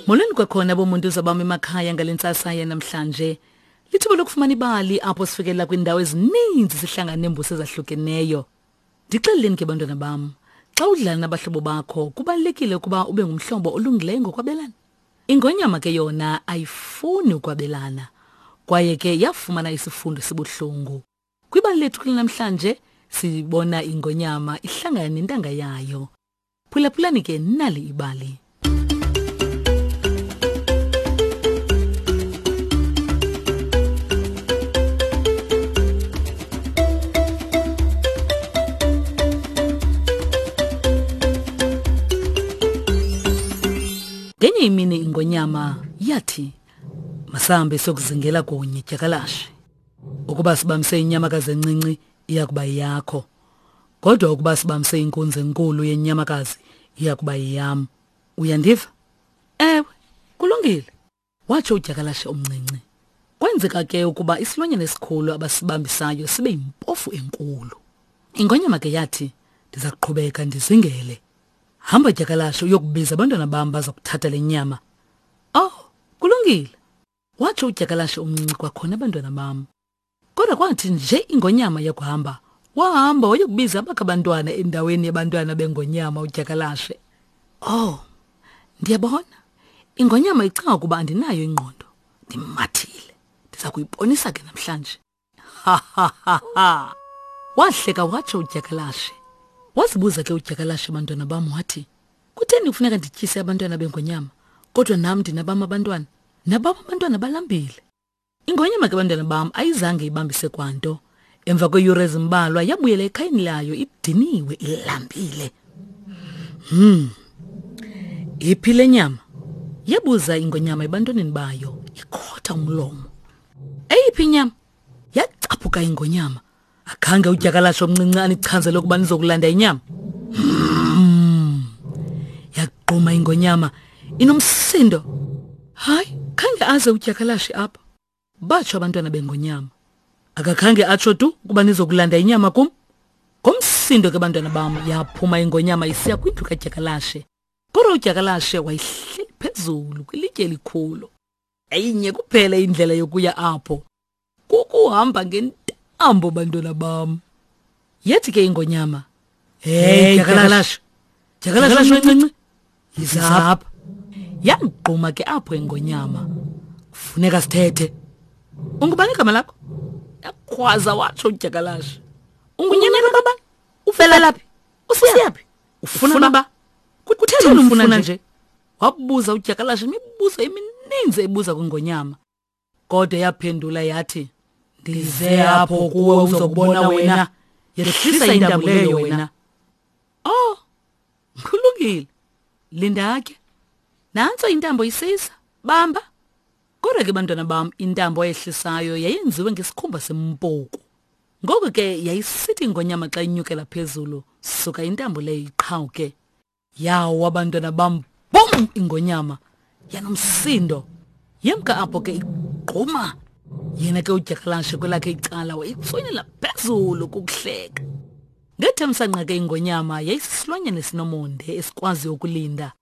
Molweni kwakhona bomuntu zabam emakhaya ngale ntsasa yanamhlanje. Lithuba lokufumana ibali apho sifikelela kwiindawo ezininzi sihlangana neembuso ezahlukeneyo. Ndixeleleni ke bantwana bam, xa udlala nabahlobo bakho kubalulekile ukuba ube ngumhlobo olungileyo ngokwabelana. Ingonyama ke yona ayifuni ukwabelana kwaye ke yafumana isifundo esibuhlungu. Kwibali lethu kulanamhlanje sibona ingonyama ihlangana nentanga yayo. Phulaphulani ke nali ibali. Ngenye imini ingonyama yathi masambe siyokuzingela kunye dyakalashe. Ukuba sibamse inyamakazi encinci iya kuba yakho. Kodwa ukuba sibamse inkunzi enkulu yenyamakazi iya kuba yeyam. Uyandiva? Ewe, kulungile, watsho udyakalashe omncinci. Kwenzeka ke ukuba isilwanyana esikhulu abasibambisayo sibe yimpofu enkulu. Ingonyama ke yathi, ndiza kuqhubeka ndizingele. Hamba dyakalashe uyokubiza abantwana bam baza kuthatha le nyama. Oh, kulungile, watsho udyakalashe omncinci kwakhona abantwana bam. Kodwa kwathi nje ingonyama yakuhamba, wahamba wayokubiza abakhe abantwana endaweni yabantwana bengonyama udyakalashe. Oh, ndiyabona. Ingonyama icinga ukuba andinayo ingqondo. Ndimathile. Ndiza kuyibonisa ke namhlanje. Ha ha ha ha. Wahleka watsho udyakalashe. Wazibuza ke udyakalashe bantwana bam wathi, kutheni kufuneka ndityise abantwana bengonyama kodwa nam ndinabam abantwana? Nabam abantwana balambile. Ingonyama ke bantwana bam ayizange ibambise kwanto. Emva kweeyure ezimbalwa yabuyela ekhayeni layo idiniwe ilambile. Iphi le nyama? Yabuza ingonyama ebantwaneni bayo ikhotha umlomo. Eyiphi inyama? Yacaphuka ingonyama. Akhange udyakalashe omncinci anichazele ukuba nizokulanda inyama. Yaqhuma ingonyama inomsindo. Hayi, khange aze udyakalashe apha. Batsho abantwana bengonyama. Akakhange atsho tu ukuba nizokulanda inyama kum. Ngomsindo ke bantwana bam yaphuma ingonyama isiya kwindlu kadyakalashe. Kodwa udyakalashe wayehleli phezulu kwilitye elikhulu. Yayinye kuphela indlela yokuya apho. Kukuhamba ngentambo bantwana bam. Yathi ke ingonyama, "Hey dyakalashe. Dyakalashe omncinci. Yiza apha." Yamgquma ke apho ingonyama. Kufuneka sithethe. Ungubani igama lakho? Yakhwaza watsho udyakalashe. Ungunyana kabani? Uvela phi? Usiyaphi? Ufuna ba? Kutheni umfuna nje? Wabuza udyakalashe imibuzo emininzi ebuza kwingonyama. Kodwa yaphendula yathi, ndize apho kuwe uzokubona wena. Yehlisa intambo leyo wena. Oh, kulungile. Linda ke. Nantso intambo isiza. Bamba. Kodwa ke bantwana bam, intambo ayehlisayo yayenziwe ngesikhumba sempuku. Ngoko ke yayisithi ingonyama xa inyukela phezulu, suka intambo leyo iqhawuke. Yawa abantwana bam, bum ingonyama yanomsindo. Yemka apho ke igquma. Yena ke udyakalashe kwelakhe icala wayitswinela phezulu kukuhleka. Ngethemsanqa ke ingonyama yayisisilwanyana esinomonde esikwaziyo ukulinda.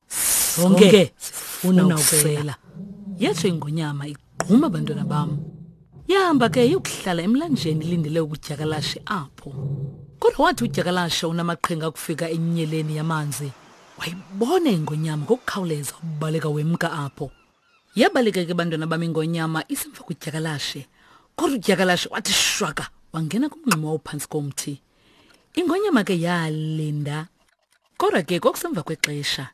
Sonke sifuna ukusela. Yatsho ingonyama igquma abantwana bam. Yahamba ke yokuhlala emlanjeni ilindele ukudyakalashe apho. Kodwa wathi udyakalashe unamaqhinga akufika enyeleni yamanzi, wayibona ingonyama ngokukhawuleza ubaleka wemka apho. Yabaleka ke bantwana bam ingonyama isemva kudyakalashe. Kodwa udyakalashe wathi shwaka wangena kumngxuma owawuphantsi komthi. Ingonyama ke yalinda. Kodwa ke kwakusemva kwexesha.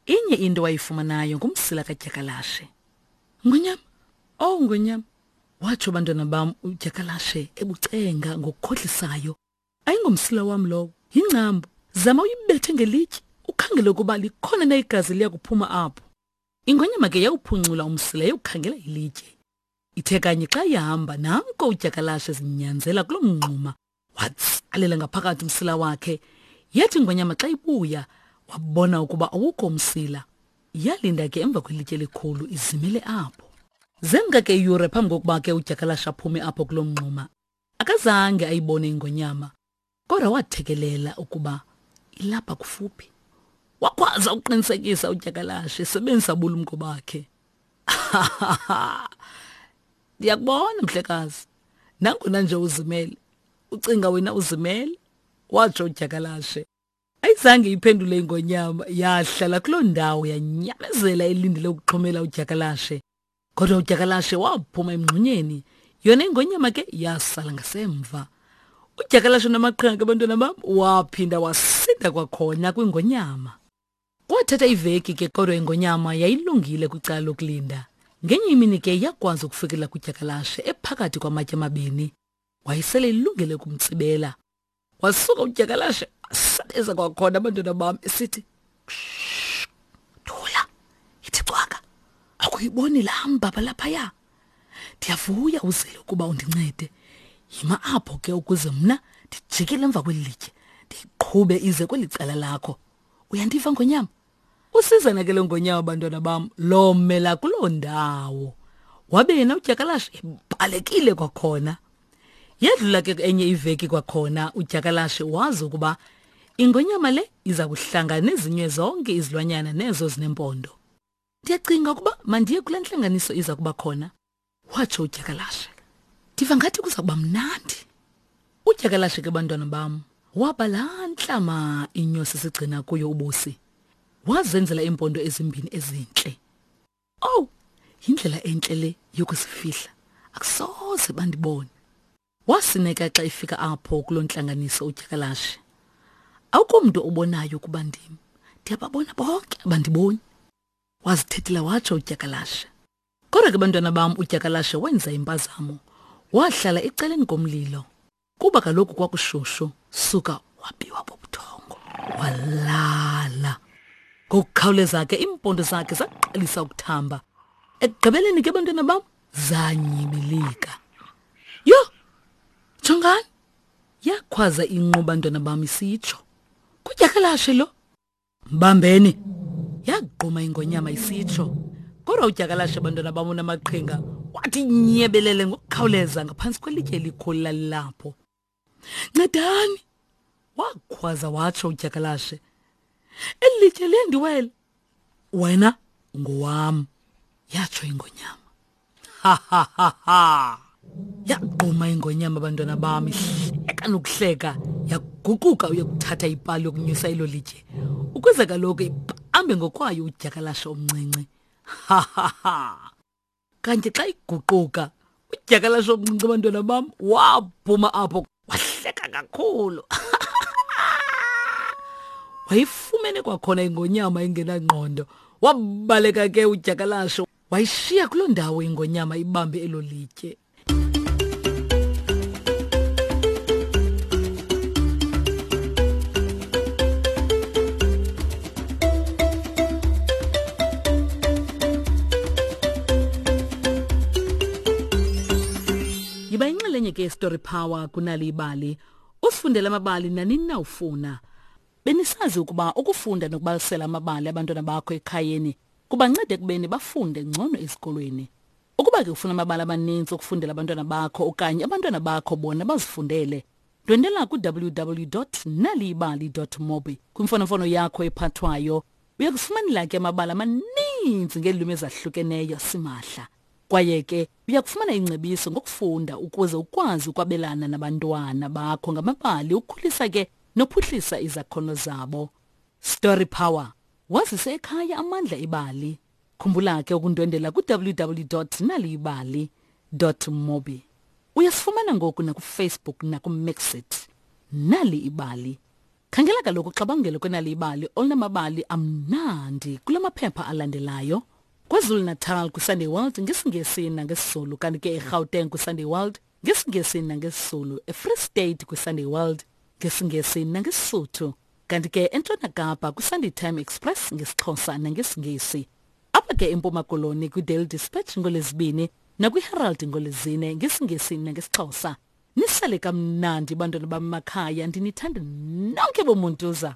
Inye into wayifumanayo ngumsila kadyakalashe. Ngonyama, oh ngonyama, watsho bantwana bam udyakalashe ebucenga ngokukhohlisayo. Ayingomsila wam lowo, yingcambu. Zama uyibethe ngelitye, ukhangele ukuba likhona na igazi liya kuphuma apho. Ingonyama ke yawuphuncula umsila yawukhangela ilitye. Ithe kanye xa ihamba nanko udyakalashe zinyanzela kuloo mngxuma watsalela ngaphakathi umsila wakhe. Yathi ingonyama xa ibuya wabona ukuba awukho umsila. Yalinda ke emva kwelitye elikhulu izimele apho. Zemka ke iyure phambi kokuba ke udyakalashe aphume apho kuloo mngxuma. Akazange ayibone ingonyama, kodwa wathekelela ukuba ilapha kufuphi. Wakhwaza Waza uqinisekisa udyakalashe esebenzisa ubulumko bakhe. Ndiyakubona mhlekazi. Nangona nje uzimele. Ucinga wena uzimele? Watsho udyakalashe. Ayizange iphendule ingonyama, yahlala kuloo ndawo yanyamezela elindele ukuxhomela udyakalashe. Kodwa udyakalashe waphuma emngxunyeni, yona ingonyama ke yasala ngasemva. Udyakalashe namaqhinga ke bantwana bam waphinda wasinda kwakhona kwingonyama. Kwathatha iveki ke kodwa ingonyama yayilungile kwicala lokulinda. Ngenye imini ke yakwazi ukufikelela kudyakalashe ephakathi kwamatye amabini. Wayesele ilungele ukumtsibela. Wasuka udyakalashe wasabeza kwakhona abantwana bam esithi thula yithi cwaka akuyiboni laa mbaba laphaya ndiyavuya uzele ukuba undincede yima apho ke ukuze mna ndijikele emva kweli litye ndiyiqhube ize kweli cala lakho uyandiva ngonyama Usizana ke lo ngonyama bantwana bam lomela kuloo ndawo. Wabe yena udyakalashe ebalekile kwakhona. Yadlula ke enye iveki kwakhona udyakalashe wazi ukuba ingonyama le iza kuhlangana nezinye zonke izilwanyana nezo zinempondo. Ndiyacinga ukuba mandiye kule ntlanganiso iza kuba khona. Watsho udyakalashe. Ndiva ngathi kuza kuba mnandi. Udyakalashe ke bantwana bam waba laa ntlama inyosi sigcina kuyo ubusi. Wazenzela iimpondo ezimbini ezintle. Owu, yindlela entle le yokuzifihla. Akusoze bandibone. Wasineka xa efika apho kuloo ntlanganiso udyakalashe. Akukho mntu obonayo ukuba ndim. Ndiyababona bonke abandiboni. Wazithethela watsho udyakalashe. Kodwa ke bantwana bam udyakalashe wenza impazamo. Wahlala ecaleni komlilo. Kuba kaloku kwakushushu, suka wabiwa bubuthongo. Walala. Ngokukhawuleza ke iimpondo zakhe zaqalisa ukuthamba. Ekugqibeleni ke bantwana bam zanyibilika. Yho! Jongani! Yakhwaza inqu bantwana bam isitsho. Kudyakalashe lo. Mbambeni! Yagquma ingonyama isitsho. Kodwa udyakalashe bantwana bam unamaqhinga wathi nyebelele ngokukhawuleza ngaphantsi kwelitye elikhulu lalilapho. Ncedani! Wakhwaza watsho udyakalashe. Eli litye liyandiwela. Wena ngowam, yatsho ingonyama. Ha ha ha ha. Yagquma ingonyama abantwana bam ihleka nokuhleka yaguquka uyokuthatha ipali yokunyusa elo litye ukuze kaloku ibambe ngokwayo udyakalashe omncinci. Ha ha ha. Kanti xa iguquka udyakalashe omncinci abantwana bam waphuma apho wahleka kakhulu. Wayifumene kwakhona ingonyama engenangqondo. Wabaleka ke udyakalashe wayishiya kuloo ndawo ingonyama ibambe elo litye. Yiba inxalenye ke Story Power kunali ibali. Usifundele amabali nanini na ufuna. Benisazi ukuba ukufunda nokubalisela amabali abantwana bakho ekhayeni kubanceda ekubeni bafunde ngcono ezikolweni. Ukuba ke ufuna amabali amaninzi okufundela abantwana bakho okanye abantwana bakho bona bazifundele, ndwendela ku-www.naliyibali.mobi kwimfonomfono yakho ephathwayo. Uya kufumanela ke amabali amaninzi ngeelwimi ezahlukeneyo simahla. Kwaye ke uya kufumana ingcebiso ngokufunda ukuze ukwazi ukwabelana nabantwana bakho ngamabali ukhulisa ke nophuhlisa izakhono zabo. Story Power Wazise ekhaya amandla ebali. Khumbula ke ukundwendela ku-www.naliyibali.mobi. Uyasifumana ngoku nakuFacebook nakuMixit. Nali ibali. Khangela kaloku uxabangelo kwenali ibali olunamabali amnandi kula maphepha alandelayo. KwaZulu-Natal kwiSunday World ngesiNgesi nangesiZulu kanti ke eGauteng kwiSunday World ngesiNgesi nangesiZulu, eFree State kwiSunday World ngesiNgesi nangeSisuthu. Kanti ke eNtshona Kapa kwiSunday Time Express ngesiXhosa nangesiNgesi. Apha ke eMpuma Koloni kwiDaily Dispatch ngoLwezibini nakwiHerald ngoLwezine ngesiNgesi nangesiXhosa. Nisale kamnandi bantwana bam makhaya ndinithanda nonke bomuntuza.